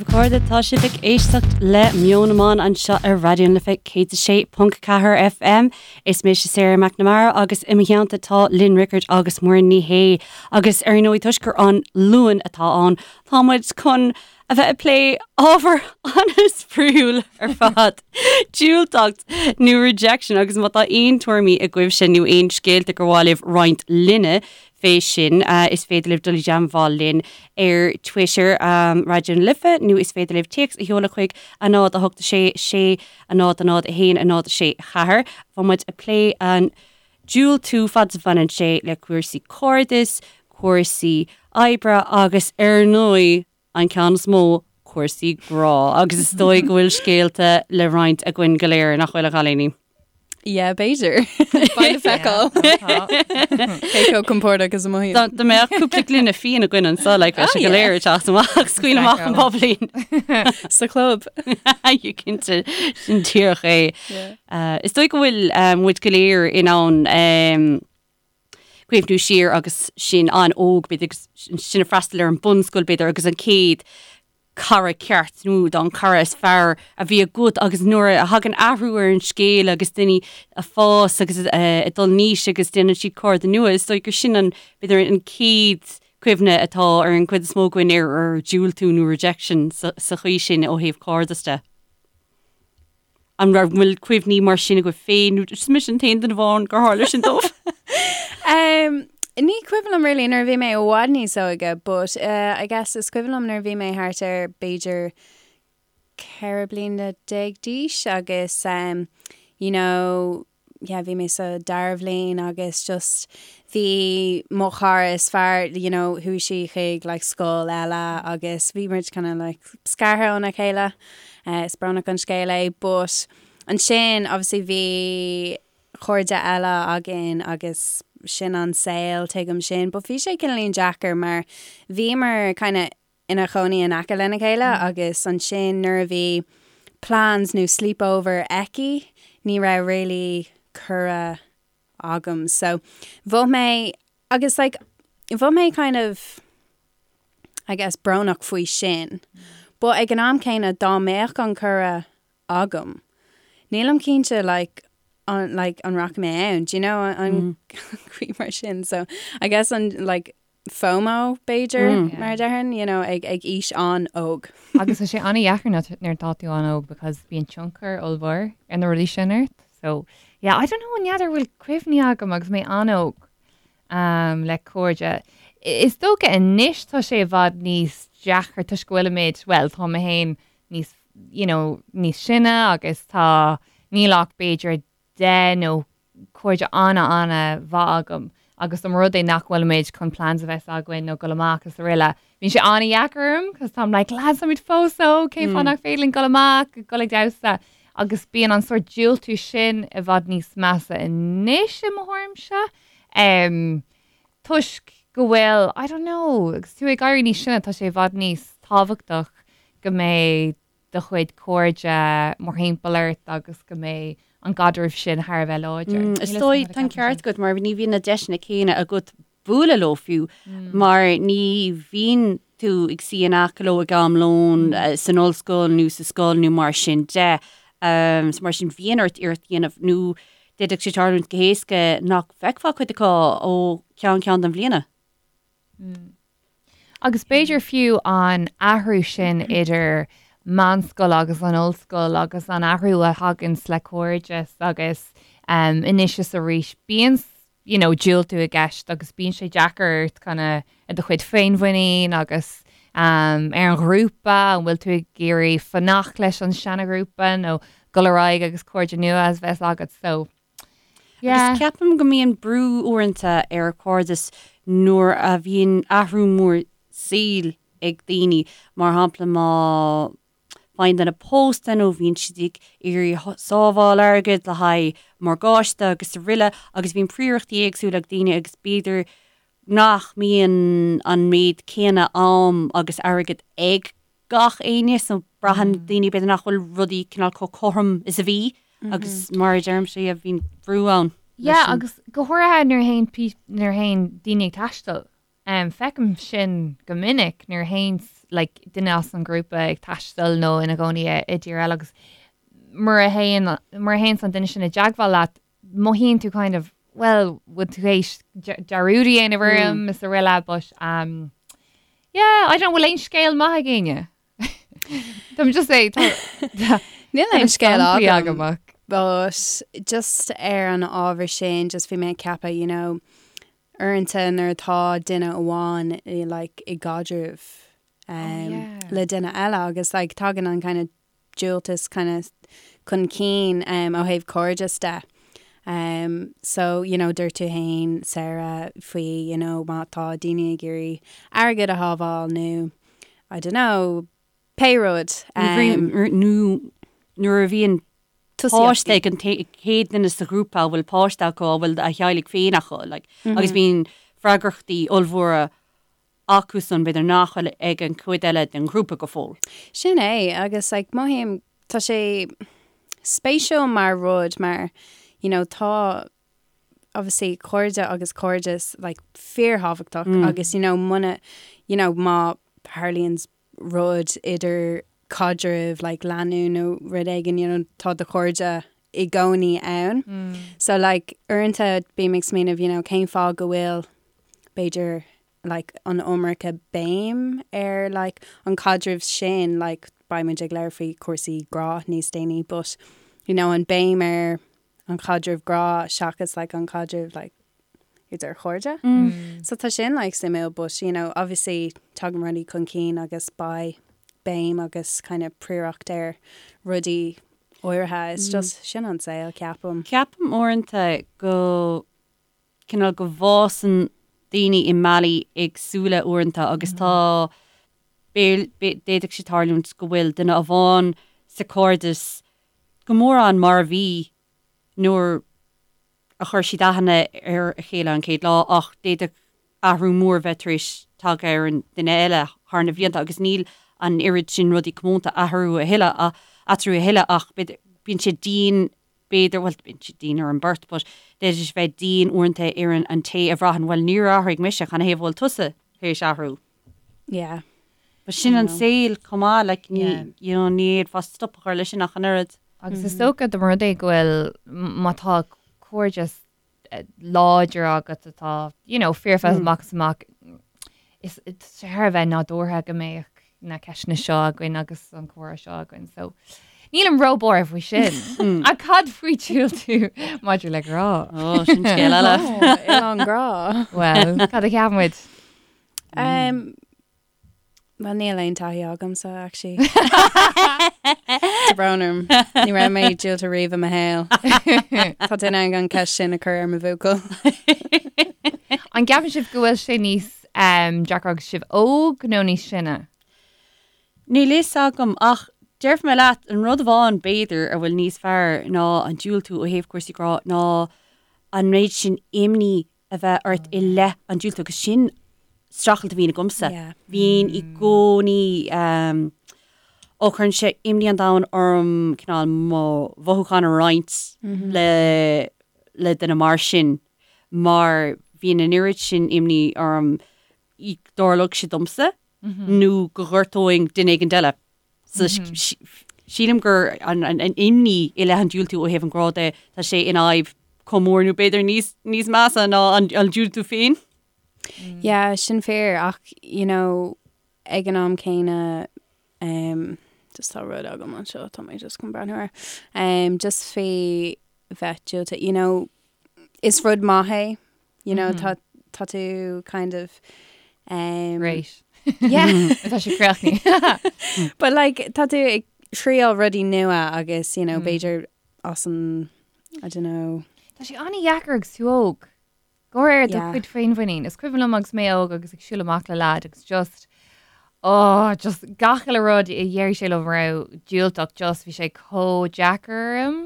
daoibh a chairde, tá sibh ag éisteacht le Meon na mBan anseo ar Raidió na Life 106.4 FM. Is mise Sarah McNamara agus i mo theannta tá Lynn Rickard agus Muireann Ní Shé. Agus ar ndóigh toisc gur an Luan atá ann, tá muid chun a bheith ag plé ábhar an-spraíúil ar fad, diúltacht nó rejection agus má tá aon tuairimí agaibhse nó aon scéalta gur mhaith libh roinnt linne fé sin, is féidir libh dul i dteagmháil linn ar Twitter, Raidió na Life, nó is féidir libh téacs a sheoladh chuig 0 8 6 6 0 0 1 0 6 4. Tá muid ag plé an diúltú fad is a bhaineann sé le cúrsaí cairdis, cúrsaí oibre agus ar ndóigh, an ceann is mó, cúrsaí grá. Agus is dóigh go bhfuil scéalta le roinnt againn go léir, nach bhfuil, a chailíní? Yeah, b'fhéidir. Beidh le feiceáil. Cé chomh compordach is a mothaím. Dá dá mbeadh cúpla gloine fíon againn anseo, like, bheadh sé go léir ag teacht amach, scaoil amach an bubbly. Sa chlub. You cinnte, sin díreach é. Is dóigh go bhfuil muid go léir in ann cuimhniú siar agus sinn an-óg, b'fhéidir, agus sinn ag freastal ar an bunscoil, b'fhéidir, agus an chéad cara ceart nó an cara is fearr a bhí agat agus nuair a thagann athrú ar an scéal agus daoine ag fás agus ag dul in aois agus déanann siad cairde nua, is dóigh gur sin an, b'fhéidir, an chéad cuimhne atá ar an gcuid is mó againn ar ar diúltú nó rejection sa chaoi sin ó thaobh cairdeas de. An raibh bhfuil cuimhní mar sin agaibh féin nó is mise an t-aon duine amháin gur tharla sin dóibh? Um, ní cuimhin liom really nuair a bhí mé i bhfad níos óige, but uh, I guess is cuimhin liom nuair a bhí mé thart ar b'fhéidir 14 bliana d'aois agus um, you know, yeah, bhí mé sa dara bhliain agus just bhí mo chara is fearr, you know, chuaigh sí chuig like scoil eile agus bhí muid kind of like scartha óna chéile. Uh, is brónach an scéal é, but ansin obviously bhí cairde eile againn agus sin an saol tuigim sin, but bhí sé cineáilín deacair mar bhíomar kind of ina chónaí in aice lena chéile agus ansin nuair a bhí plans nó sleepover aici ní raibh really cuireadh agam so bhí mé agus like bhí mé kind of I guess brónach faoi sin but ag an am céanna dá mbeadh an cuireadh agam nílim cinnte like an like an rachaidh mé ann do you know an chaoi mar sin so I guess an like FOMO, b'fhéidir, mar a déarfainn, you know, ag ag aois an-óg. Agus tá sé an-dheacair nuair atá tú an-óg because bíonn tionchar ollmhór ar na rudaí sin ort. So, yeah, I don't know, n'fheadar bhfuil cuimhní agam agus mé an-óg um, le cairde. Is dócha anois tá sé i bhfad níos deacra toisc go bhfuilimid, well, tá mé féin níos, you know, níos sine agus tá, níl ach b'fhéidir 10 nó cairde ana-ana-mhaith agam agus dá mba rud é nach bhfuilimid chun plans a bheith againn nó dul amach is araile, bíonn sé an-dheacair orm cos táim like lads táimid fós óg, cén fáth nach féidir linn dul amach, dul ag damhsa agus bíonn an sórt diúltú sin i bhfad níos measa anois i mo thuairimse um, toisc go bhfuil, I don't know, agus tú ag éirí níos sine tá sé i bhfad níos tábhachtach go mbeidh do chuid cairde mórthimpeall ort agus go mbeidh an caidreamh sin thar a bheith láidir. Is dóigh, tá an ceart agat, mar ní bhíonn na deiseanna céanna agat bualadh leo fiú, mar ní bhíonn tú ag suí in aice leo ag am lóin san ollscoil nó sa scoil nó mar sin de. So mar sin bíonn ort iarracht a dhéanamh nó d'fhéadfadh sé tarlúint go héasca nach bhfeicfeá cuid acu ó cheann ceann den bhliana. Agus b'fhéidir fiú an athrú sin idir meánscoil agus an ollscoil agus an athrú a thaganns le cairdeas agus anois is arís bíonn you know diúltú i gceist agus bíonn sé deacair ort kind of ar do chuid féinmhuinín agus ar an ghrúpa, an bhfuil tú ag iarraidh fanacht leis an seana-ghrúpa nó dul ar aghaidh agus cairde nua a bheith agat so Yeah. Agus ceapaim go mbíonn brú uaireanta ar chairdeas nuair a bhíonn athrú mór saoil ag daoine, mar shampla má faigheann duine pósta nó bhíonn siad ag iarraidh sábháil airgid le haghaidh morgáiste agus araile agus bíonn príorachtaí éagsúla ag daoine agus b'fhéidir nach mbíonn an méid céanna am agus airgead ag gach éinne so braitheann daoine b'fhéidir nach bhfuil rudaí cineál chomh cothrom is a bhí agus mar a deirimse yeah bíonn brú ann. Yeah agus go háirithe nuair a théann nuair a théann daoine ag taisteal. Feicim sin go minic nuair a théanns like duine as an ghrúpa ag taisteal nó ina gcónaí i dtír eile agus mura théann mura théanns an duine sin i dteagmháil leat mothaíonn tú kind of well bhfuil tú théis dearúd a dhéanamh orm is araile but um, yeah I don't bhfuil aon scéal maith ag éinne. Tá just é Níl aon scéal agam ach. But just ar an ábhar sin just bhí mé ag ceapadh you know uaireanta nuair atá duine amháin i like i gcaidreamh um, oh, yeah. le duine eile agus like tagann an kind of diúltas kind of chun cinn um, ó thaobh cairdeas de. Um, so you know dúirt tú féin Sarah faoi you know má tá daoine ag iarraidh airgead a shábháil nó I don't know pé rud. Um, nó nuair a bhíonn páiste ag an chéad duine sa ghrúpa a bhfuil páiste acu a bhfuil a theaghlaigh féin acu like, mm -hmm. agus bíonn freagrachtaí ollmhóra acusan b'fhéidir nach bhfuil ag an chuid eile den ghrúpa go fóill. Sin é agus like, mothaím tá sé spéisiúil mar rud mar you know, tá obviously cairde agus cairdeas like fíorthábhachtach mm. agus you know muna you know má tharlaíonn rud idir caidreamh like lánúin nó rud éigin you know tá do chairde i gcónaí ann. Mm. So like uaireanta bím ag smaoineamh you know cén fáth go bhfuil b'fhéidir like an iomarca béim ar like an caidreamh sin like beidh muid ag labhairt faoi cúrsaí grá níos déanaí but you know an béim ar an chaidreamh grá seachas like an caidreamh like idir chairde. Mm. So tá sin like suimiúil but you know obviously tagann rudaí chun cinn agus beidh béim agus kind of príoracht ar rudaí áirithe. It's mm. just sin an saol ceapaim. Ceapaim uaireanta go cineál go bhfásann daoine i mbealaí éagsúla uaireanta agus tá d'fhéadfadh sé tarlúint go bhfuil duine amháin sa chairdeas go mórán mar a bhí nuair a chuir siad aithne ar a chéile an chéad lá ach d'fhéadfadh athrú mór bheith tar éis tagtha ar an duine eile thar na blianta agus níl an oiread sin rudaí comónta eatarthu a thuilleadh eatarthu a thuilleadh ach bíonn sé dian b'fhéidir, bhuel bíonn sé dian ar an beirt but d'fhéadfadh sé bheith dian uaireanta ar an té a bhraitheann bhuel níor athraigh mise, canathaobh a bhfuil tusa tar éis athrú? Yeah. But sin an saol chomh maith, like, ní, yeah. you know, ní fhéadfá stop a chur leis sin ach an oiread. Agus is dócha dá mba rud é go bhfuil má tá cairdeas láidir agat atá, you know, fíorfhada amach is amach, is thar a bheith nádúrtha go mbeadh na ceisteanna seo againn agus an comhrá seo againn. So nílim róbhuartha faoi sin. Ach cad faoi diúltú maidir le grá? Ó, sin scéal eile. Oileán grá. Well, cad a cheapann muid? Um, Well níl aon taithí agamsa actually. Tá brón orm. Ní raibh mé diúltaithe riamh i mo shaol. Tá duine ann an ceist sin a chur ar mo bhuachaill. An gceapann sibh go bhfuil sé níos um, deacra agus sibh óg nó níos sine? Níl fhios agam ach déarfaidh mé leat an rud amháin b'fhéidir a bhfuil níos fearr ná an diúltú ó thaobh cúrsaí grá ná an méid sin imní a bheith ort i leith an diúltú agus sin streachailt a bhíonn agamsa. Bhíonn i gcónaí ó cuireann sé imní an domhain orm cineál mo mhothúcháin a roinnt le le duine mar sin mar bhíonn an oiread sin imní orm go dtarlódh sé domsa nó go ngortóinn duine éigin eile. So sílim gur an imní i leith an diúltú ó thaobh an ghrá de, tá sé ina fhadhb chomh mór nó b'fhéidir níos níos measa ná an diúltú féin. Yeah, sin fíor ach you know ag an am céanna um, just tá rud agam anseo tá mé just chun breathnú air. Um, just faoi bheith diúltaithe, you know, is rud maith é You know, tá tá tú kind of um, Great. Yeah. Tá sé críochnaithe. But like tá tú ag triail rudaí nua agus you know, mm. b'fhéidir as an I don't know. Tá sé an-dheacair agus tú óg. Go háirithe do chuid féinmhuinín. Is cuimhin liom agus mé óg agus ag siúl amach le leaid agus just oh, just gach uile rud a dheir sé liom a raibh diúltach just bhí sé chomh deacair orm.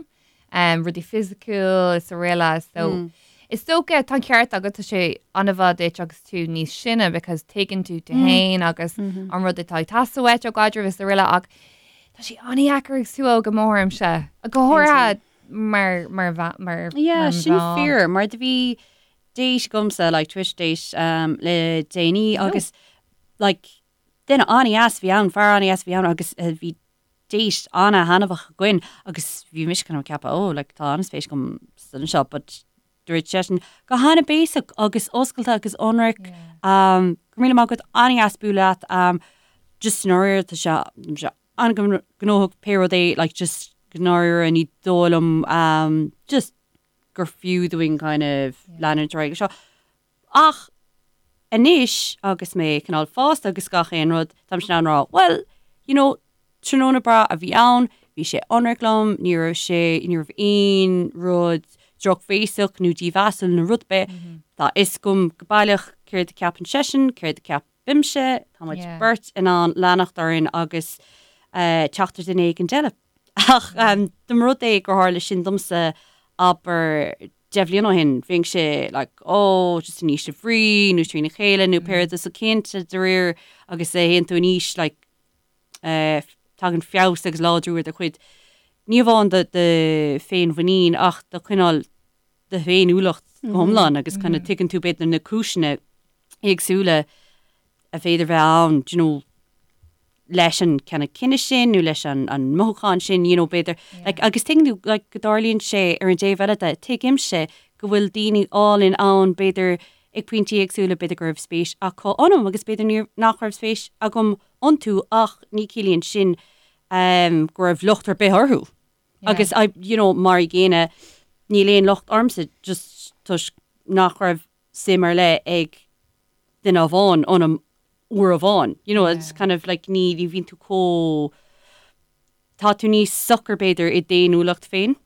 um, rudaí fisiciúil is araile so mm. Is dócha tá an ceart agat tá sé an-mhaith duit agus tú níos sine because tuigeann tú tú mm. féin agus mm -hmm. an rud atá ag teastáil uait ó gcaidreamh is araile ach tá sé an-dheacair agus tú óg go mothaímse go háirithe mar mar mar Yeah, sin fíor mar do bhí. date agamsa, like Twitter date um, le déanaí agus like duine an-dheas a bhí ann, fear an-dheas a bhí ann agus eh, bhí date an-thaitneamhach againn agus bhí mise kind of ag ceapadh oh like tá an-spéis agam sa duine seo but dúirt seisean go han-bhéasach agus oscailte agus ionraic um, go raibh míle maith agat an-dheas bualadh leat um, just i ndáiríre tá sé sé an-ghnóthach pé rud é like just i ndáiríre ní dóigh liom um, just gur fiú dúinn kind of leanúint ar aghaidh seo. Ach anois agus mé cineál fásta agus gach aon rud, táimse in ann rá, well, you know, tráthnóna breá a bhí ann, bhí sé ionraic liom, ní raibh sé, ní raibh aon rud drochbhéasach nó dímheasúil nó rud ar bith. Tá a fhios agam go baileach céard a ceapann seisean, céard a ceapaimse, tá muid beirt in ann leanacht orainn agus teacht ar duine éigin eile. Ach dá mba rud é gur tharla sin domsa, abair, 10 bhliain ó shin, bheinnse like oh just in ísle bhrí nó trína chéile nó pé rud é. So cinnte de réir agus a théann tú in aois like eh, tagann feabhas agus láidriú ar do chuid, ní amháin do do féinmhuinín ach do chineál do fhéiniúlacht go hiomlán agus kind of tuigeann tú b'fhéidir na cúiseanna éagsúla a bhféidir bheith ann, do you know, leis an kind of cinneadh sin nó leis an an mothúchán sin, you know, b'fhéidir, like, agus tuigeann tú, like, go dtarlaíonn sé ar an dtaobh eile de, tuigimse go bhfuil daoine álainn ann, b'fhéidir ag pointí éagsúla, b'fhéidir go raibh spéis acu ionam agus b'fhéidir níor, nach raibh spéis agam iontu ach ní ciallaíonn sin um, go raibh locht ar bith orthu. Agus I, you know, mar an gcéanna, níl aon locht ormsa just toisc nach raibh suim ar leith ag duine amháin ionam uair amháin. You know, it's kind of like ní ní bhíonn tú chomh tá tú níos socair b'fhéidir i d'fhéiniúlacht féin.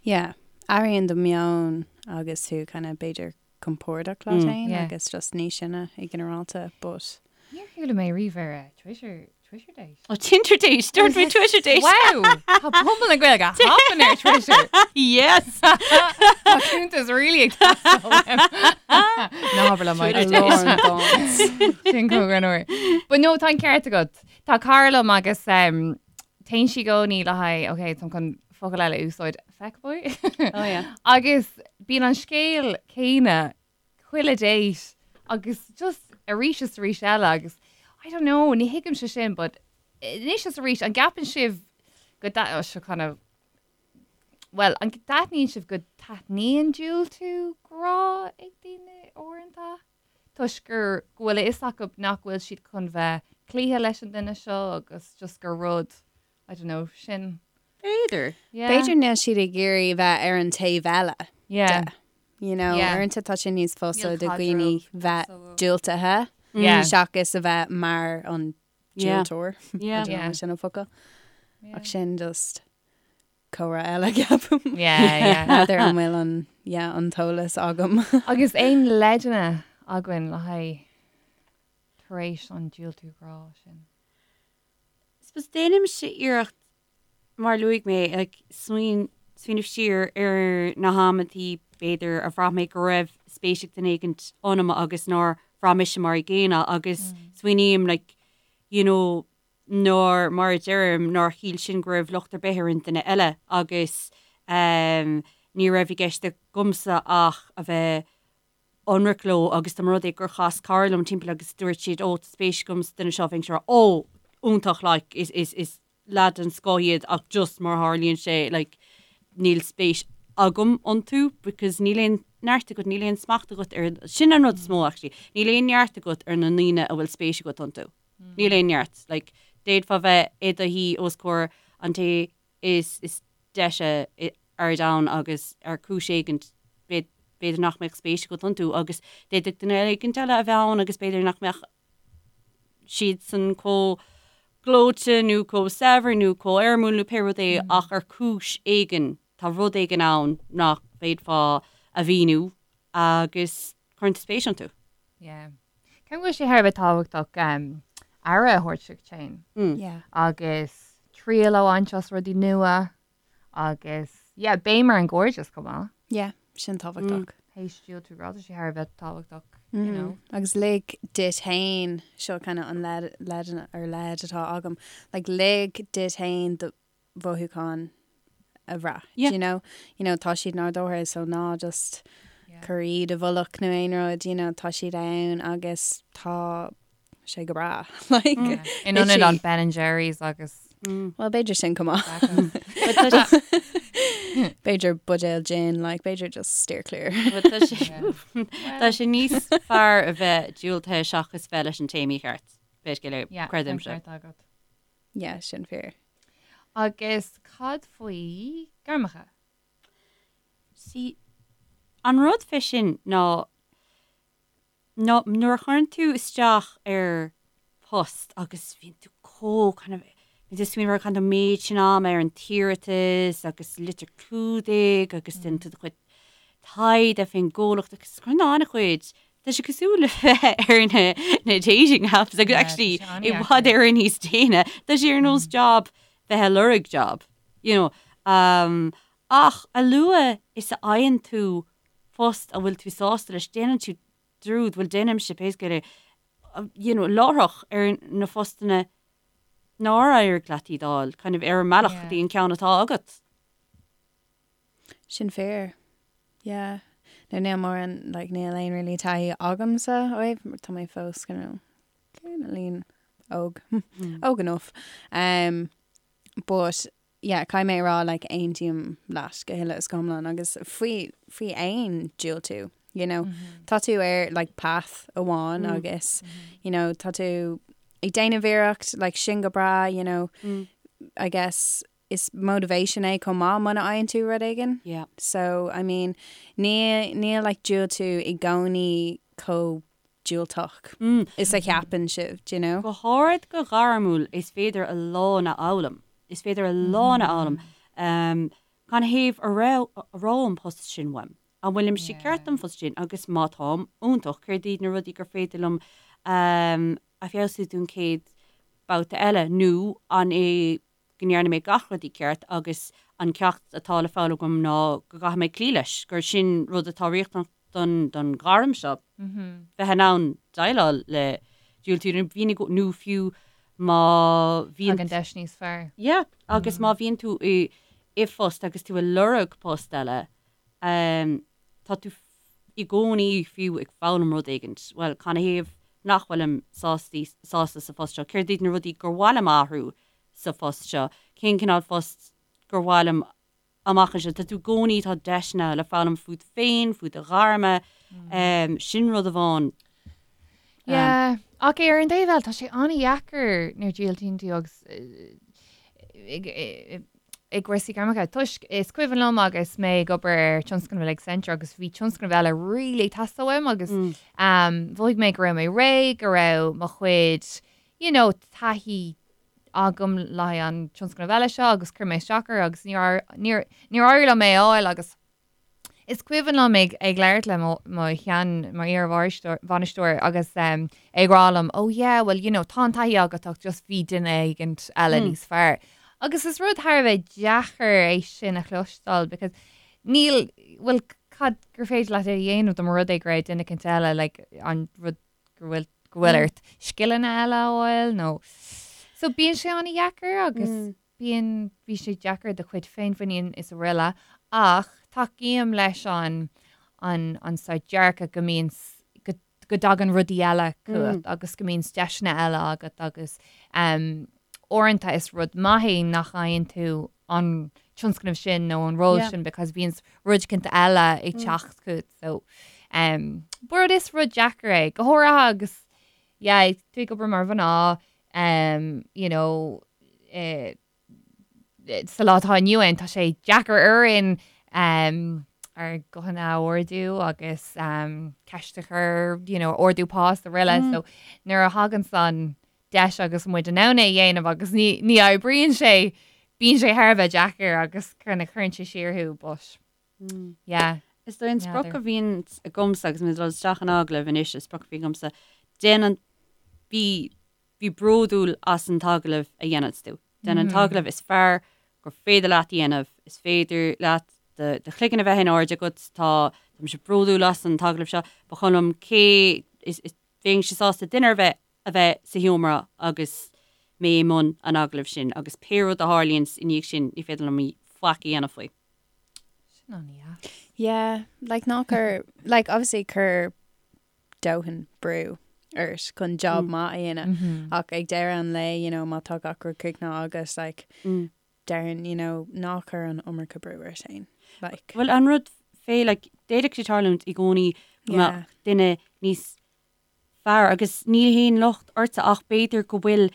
Yeah, athraíonn do meon agus tú kind of b'fhéidir compordach leat féin agus just níos sine i ginearálta but. Níor chuala mé riamh ar Twitter Twitter date. Oh, Tinder date! Dúirt mé Twitter date! Wow! Tá pobal na Gaeilge hopping ar Twitter. Yes! Tá cuntas really ag teastáil uaim. Ná habair liom Twitter date. Sin go an uair. But no, tá an ceart agat. Tá cara liom agus um, téann sí i gcónaí le haghaidh, ok, táim chun focal eile a úsáid, feckboy. Oh yeah. Agus bíonn an scéal céanna chuile date agus just arís is arís eile agus I don't know, ní thuigimse sin but anois is arís an gceapann sibh go dta- oh, seo kind of well, an dtaitníonn sibh go dtaitníonn diúltú grá ag daoine uaireanta toisc gur go bhfuil a fhios acu nach bhfuil siad chun bheith cloíthe leis an duine seo agus just gur rud I don't know, sin. B'fhéidir. Yeah. B'fhéidir níl siad ag iarraidh bheith ar an taobh eile Yeah. de. You know, Yeah. uaireanta tá sé níos fusa Níl do dhaoine caidreamh bheith so- diúltaithe Yeah. seachas a bheith mar an Yeah. diúltóir. Yeah. I don't know, Yeah. sin an focal. Yeah. Ach sin just comhrá eile ceapaim. Yeah, yeah. N'fheadar an bhfuil an, yeah, an t-eolas agam. Agus aon leideanna againn le haghaidh tar éis an diúltú grá sin? Suppose déanaimse iarracht, mar a luaigh mé, like, smaoin, smaoineamh siar ar na hamantaí b'fhéidir a bhraith mé go raibh spéis ag duine éigin ionam agus nár bhraith mise mar an gcéanna agus smaoiním, like, you know, nár, mar a deirim, nár shíl sin go raibh locht ar bith ar an duine eile agus ehm ní raibh i gceist agamsa ach a bheith ionraic leo agus dá mba rud é gur chas cara liom timpeall agus dúirt siad ó tá spéis agam sa duine seo bheinnse ag rá ó iontach like is is is leaid den scoth iad ach just mar a tharlaíonn sé like níl spéis agam iontu because níl aon neart agat níl aon smacht agat ar sin an rud is mó actually níl aon neart agat ar na ndaoine a bhfuil spéis agat iontu níl aon neart like d'fhéadfá bheith i do shuí os comhair an té is is deise ar domhan agus ar chúis éigin b'fhéidir nach mbeadh spéis agat iontu agus d'fhéadfadh duine éigin eile a bheith ann agus b'fhéidir nach mbeadh siadsan chomh gleoite nó chomh saibhir nó chomh éirimiúil nó pé rud é ach ar chúis éigin tá rud éigin ann nach bhféadfá a mhíniú agus cuireann tú spéis iontu. Yeah. Ceapaim go bhfuil sé thar a bheith tábhachtach aire a thabhairt duit féin. Yeah. Agus triail a bhaint as rudaí nua agus yeah, béim ar an gcairdeas chomh maith. Yeah, sin tábhachtach. Théis diúltú grá, tá sé thar a bheith tábhachtach, you know. Agus lig duit féin, seo kind of an leid, leid ar leid atá agam, like lig duit féin do mhothúcháin a bhrath. Yeah. Do you know? You know, tá siad nádúrtha, so ná just Yeah. cur iad i bhfolach nó aon rud, you know, tá siad ann agus tá sé go breá. Like, In ionad an Ben and Jerry's agus Well, b'fhéidir sin chomh maith. B'fhéidir buidéal gin, like, b'fhéidir just steer clear. Tá sé Tá sé níos fearr a bheith diúltaithe seachas bheith leis an té mícheart. B'fhéidir Yeah, creidimse. ceart agat. Yeah, sin fíor. Agus cad faoi gairmeacha? See, an rud fé sin ná ná nuair a chuireann tú isteach ar post agus bíonn tú chomh kind of bíonn tú ag smaoineamh ar caitheann tú an méid sin ama ar an t-iarratas agus litir clúdaigh agus déanann tú do chuid taighde fén gcomhlacht agus cuireann tú an-chuid tá sé cosúil le bheith ar na na dating apps agus actually i bhfad Éireann níos déine tá sé ar nós job bheith ag lorg job you know um, ach a luaithe is a fhaigheann tú post a bhfuil tú sásta leis déanann tú dearúd bhuel déanaimse pé scéal é you know láithreach ar na postanna nár éirigh leat iad a fháil kind of ar an mbealach go dtí an ceann atá agat. Sin fíor. Yeah. Nó níl mórán, like, níl aon really taithí agamsa ó thaobh, mar tá mé fós you know, cineáilín óg. Óg enough. Um, but, yeah, caithfidh mé a rá, like, aontaím leat go huile is go hiomlán agus faoi, faoi aon diúltú, you know. Tá tú ar, like, path amháin agus, you know, tá tú ag déanamh iarracht, like, sin go breá, you know, I guess, is motivation é chomh maith muna fhaigheann tú rud éigin. Yeah. So, I mean, níl, níl like diúltú i gcónaí chomh diúltach is a cheapann sibh, do you know? Go háirid go gairmiúil, is féidir a lán a fhoghlaim. Is féidir a lán a fhoghlaim. Um, canathaobh a raibh, a raibh an post sin uaim? An bhfuilimse ceart don phost sin? Agus má táim, iontach, céard iad na rudaí gur féidir liom um, a feabhsú don chéad babhta eile? Nó an é go ndearna mé gach rud i gceart agus an ceacht atá le foghlaim agam ná go gcaithfidh mé cloí leis, gur sin rud atá riachtanach don don ghairm seo, bheith in ann déileáil le diúltú nó bhíonn nó fiú má bhíonn. Tagann deis níos fearr. Yeah, agus má bhíonn tú i i bpost agus tú ag lorg post eile, tá tú i gcónaí fiú ag foghlaim rud éigin. Bhuel, canathaobh nach bhfuilim sásta sásta sa phost seo? Céard iad na rudaí gur mhaith liom a athrú sa phost seo? Cén cineál phost gur mhaith liom amach anseo? Tá tú i gcónaí, tá deiseanna le foghlaim fút féin, faoi do ghairme, sin rud amháin. Yeah, ach ar an dtaobh eile, tá sé an-dheacair nuair a dhiúltaíonn tú agus i gcúrsaí gairmeacha. Toisc is cuimhin liom agus mé ag obair ar tionscnamh le Accenture agus bhí tionscnamh eile really ag teastáil uaim agus mhothaigh mé go raibh mé réidh, go raibh mo chuid you know, taithí agam le haghaidh an tionscnamh eile seo agus chuir mé isteach air agus níor níor níor éirigh liom é a fháil agus Is cuimhin liom ag ag labhairt le mo mo shean mo iar-bhainisteoir agus é ag rá liom oh yeah well you know tá an taithí agat ach just bhí duine éigint eile níos fearr. Agus is rud thar a bheith deacair é sin a chloisteáil because níl bhuel cad gur féidir leat a dhéanamh dá mba rud é go raibh duine éicint eile like an rud go bhfuil go bhfuil ort scileanna eile a fháil nó so bíonn sé an-dheacair agus Bíonn, bíonn sé deacair do chuid féinmhuinín is araile ach tacaím leis an, an, an saghas dearcadh go mbíonn, go, go dtagann rudaí eile chugat agus go mbíonn deiseanna eile agat agus em uaireanta is rud maith é nach bhfaigheann tú an tionscnamh sin nó an ról sin because bíonn rud éicint eile ag teacht chugat so em but is rud deacair é go háirithe agus yeah tú ag obair mar mhná um, you know, eh, sa lá atá inniu ann, tá sé deacair orainn um, ár guthanna a ardú agus um, ceist a chur, you know, ardú pá is araile. Mm. So nuair a thagann an deis agus muid in ann é a dhéanamh agus ní, ní oibríonn sé, bíonn sé thar a bheith deacair agus kind of cuireann sé siar thú, but mm. yeah. Is dóigh an sprioc a bhíonn agamsa agus mé ag dul isteach in agallamh anois, an sprioc a bhíonn agamsa, déan an, bí, bí bródúil as an t-agallamh a dhéananns tú. Déan an t-agallamh is fearr gur féidir leat a dhéanamh, is féidir leat do, do chloigeann a bheith in airde agat, tá, tá mise bródúil as an t-agallamh seo, ba chuma liom cé, is, is, bheinnse sásta duine ar bith a bheith sa sheomra agus mé i mbun an agallaimh sin agus pé rud a tharlaíonns i ndiaidh sin ní féidir liom faic a dhéanamh faoi. Sin an-dheas. Yeah, like ná cuir, like obviously cuir dóthain brú ort chun job maith a dhéanamh ach ag deireadh an lae, you know, má tá gach rud críochnaithe agat, like, déarfainn, you know, ná cuir an iomarca brú ort féin, like. Bhuel, an rud fé, like, d'fhéadfadh sé tarlúint i gcónaí go mbeadh duine níos fearr agus ní haon locht ortsa ach b'fhéidir go bhfuil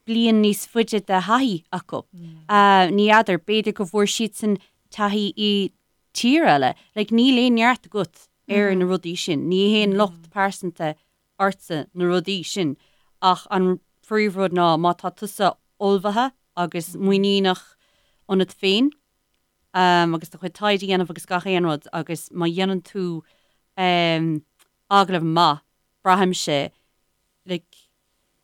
bliain níos faide de thaithí acu. Ní fheadar, b'fhéidir go bhfuair siadsan taithí i tír eile. Like, níl aon neart agat ar na rudaí sin. Ní haon locht pearsanta ortsa na rudaí sin. Ach an phríomhrud ná má tá tusa ullmhaithe agus muiníneach ionat féin agus do chuid taighde a dhéanamh agus gach aon rud agus má dhéanann tú agallamh maith, braithimse, like,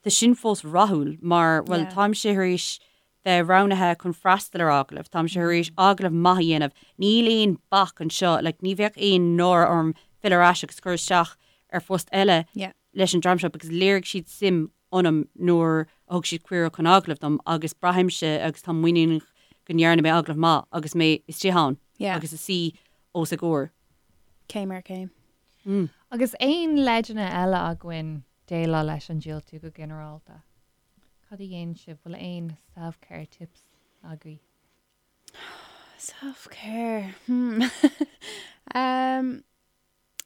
tá sin fós rathúil mar, bhuel, táimse tar éis bheith roghnaithe chun freastal ar agallamh, táimse tar éis agallamh maith a dhéanamh, níl aon bac anseo, like, ní bheadh aon náire orm filleadh ar ais agus cur isteach ar phost eile leis an dream seo because léirigh siad suim ionam nuair a thug siad cuireadh chun agallaimh dom agus braithimse agus táim muiníneach go ndearna mé agallamh maith agus mé istigh ann agus ag suí os a gcomhair. Céim ar chéim. Agus aon leideanna eile againn déileáil leis an diúltú go ginearálta? Cad a dhéanann sibh? Bhfuil aon self-care tips agaibh? Self-care, hmm. um,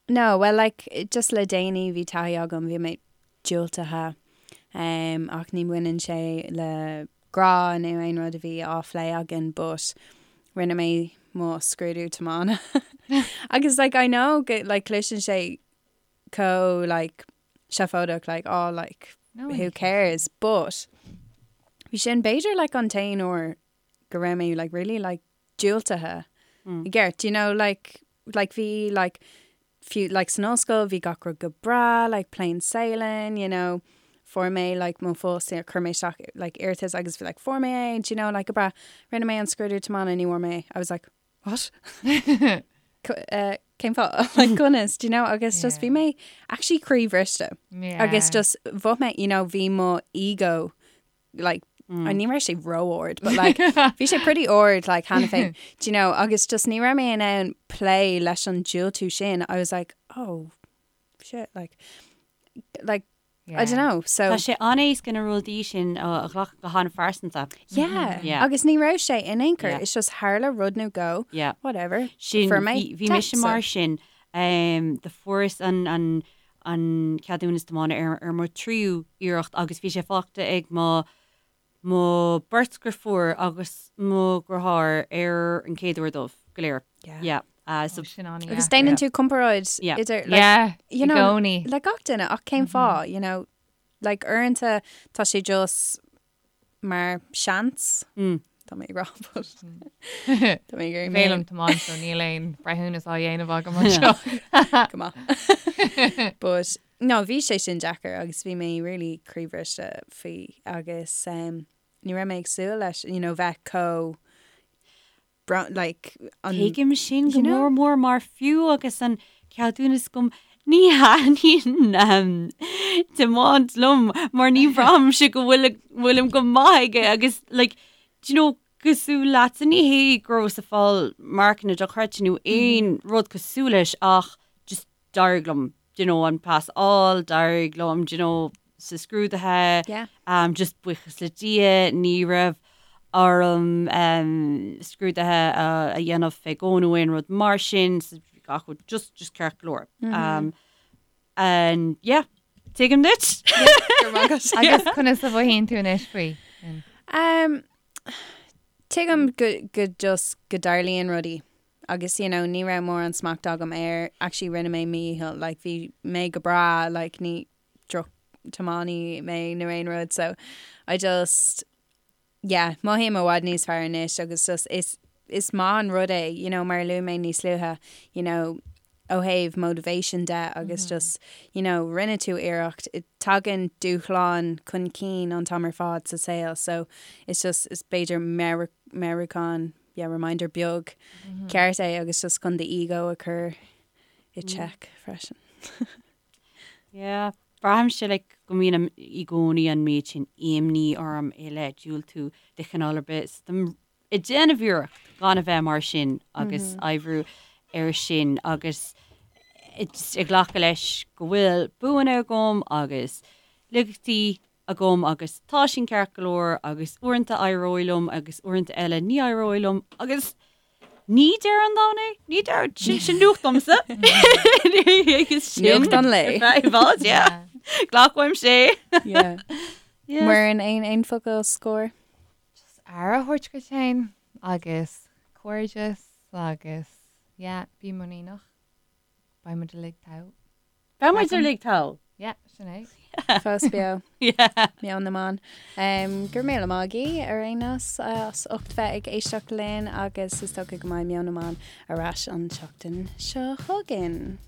no, well like, just le déanaí bhí taithí agam, bhí mé diúltaithe um, ach ní bhaineann sé le grá nó aon rud a bhí á phlé againn but rinne mé mo scrúdú tiomána agus like I know go like cloiseann sé chomh like seafóideach like oh like no, who cares but bhí sin b'fhéidir like an t-aon uair go raibh mé like really like diúltaithe i gceart do you know like like bhí like fiú like san ollscoil bhí gach rud go breá like plain sailing you know fuair mé like mo phost chuir mé isteach like iarratas agus bhí like fuair mé é do you know like go breá rinne mé an scrúdú tiomána ní bhfuair mé é I was like what eh, cén fáth like conas do you know agus just bhí mé actually croíbhriste agus just bhí mé you know bhí mo ego like mm. ní raibh sé ró-ard but like bhí sé pretty ard like cheana féin do you know agus just ní raibh mé in ann plé leis an diúltú sin I was like oh shit like like yeah. I don't know so Tá sé an-éasca na rudaí sin a ghlacadh go han-phearsanta. Yeah. Yeah. Agus ní raibh sé in aon chor yeah. it's just tharla rud nó go yeah. whatever sin bhí mise mar sin um, do fuaireas an, an, an ceadúnas tiomána ar ar mo thríú iarracht agus bhí sé faighte ag mo mo beirt dheirfiúr agus mo dheartháir ar an chéad uair dóibh go léir. Yeah. Yeah. Uh, so, Sin an Agus déanann tú comparáid Yeah. idir like, Yeah, you i know, gcónaí. le gach duine ach cén fáth, you know, like uaireanta tá sé just mar seans. Tá mé ag rá but tá mé ag iarraidh mé Féilim tiomáint so níl aon breithiúnas á dhéanamh agam anseo. go maith. But no, bhí sé sin deacair agus bhí mé really croíbhriste faoi agus um, ní raibh mé ag súil leis, you know, bheith chomh like an Tuigim sin go mór mór mar fiú agus an ceadúnas agam ní thaitníonn tiomáint liom mar ní bhraithimse go bhfuil bhfuilim go maith aige agus like do you know cosúil leatsa ní hé go rabhas ag fáil marcanna dochreidte nó aon rud cosúil leis ach just d'éirigh liom do you know an pas a fháil, d'éirigh liom do you know sa scrúduithe, Yeah. um, just buíochas le Dia ní raibh orm um, scrúduithe a, a dhéanamh fé dhó nó aon rud mar sin, so bhí gach rud just, just ceart go leor. Mm -hmm. um, and yeah, tuigim duit. Agus conas a mhothaíonn tú anois faoi? Um, tuigim go, go just go dtarlaíonn rudaí agus you know ní raibh mórán smacht agam air actually rinne mé mídhícheall like bhí mé go breá like ní droch tiománaí mé nó aon rud so I just yeah mothaím i bhfad níos fearr anois agus just is is maith an rud é you know mar a luaigh mé níos luaithe you know ó thaobh motivation de agus just you know rinne tú iarracht tagann dúshláin chun cinn an t-am ar fad sa saol so it's just is b'fhéidir meabhrúchán yeah, reminder beag ceart é agus just chun do ego a chur i check freisin. Yeah, braithimse like go mbíonn i gcónaí an méid sin imní orm i leith diúltú de chineál ar bith. So táim ag déanamh iarracht gan a bheith mar sin agus oibriú air sin agus ag glacadh leis go bhfuil buanna agam agus laigeachtaí agam agus tá sin ceart go leor agus uaireanta éireoidh liom agus uaireanta eile ní éireoidh liom agus ní deireadh an domhain é, ní deireadh, sin sin nuacht domsa. Nuacht an lae. I bhfad, yeah. Glacaim sé. Yeah. Muireann aon aon focal scoir? Just aire a thabhairt duit féin agus cairdeas agus yeah, bí muiníneach. Beidh muid uilig togha. Beidh muid uilig togha. Yeah, sin é. Fós beo. Yeah. Meon na mBan. Um, go raibh míle maith agaibh ar aon nós as ucht bheith ag éisteacht linn agus is dócha go mbeidh Meon na mBan ar ais an tseachtain seo chugainn.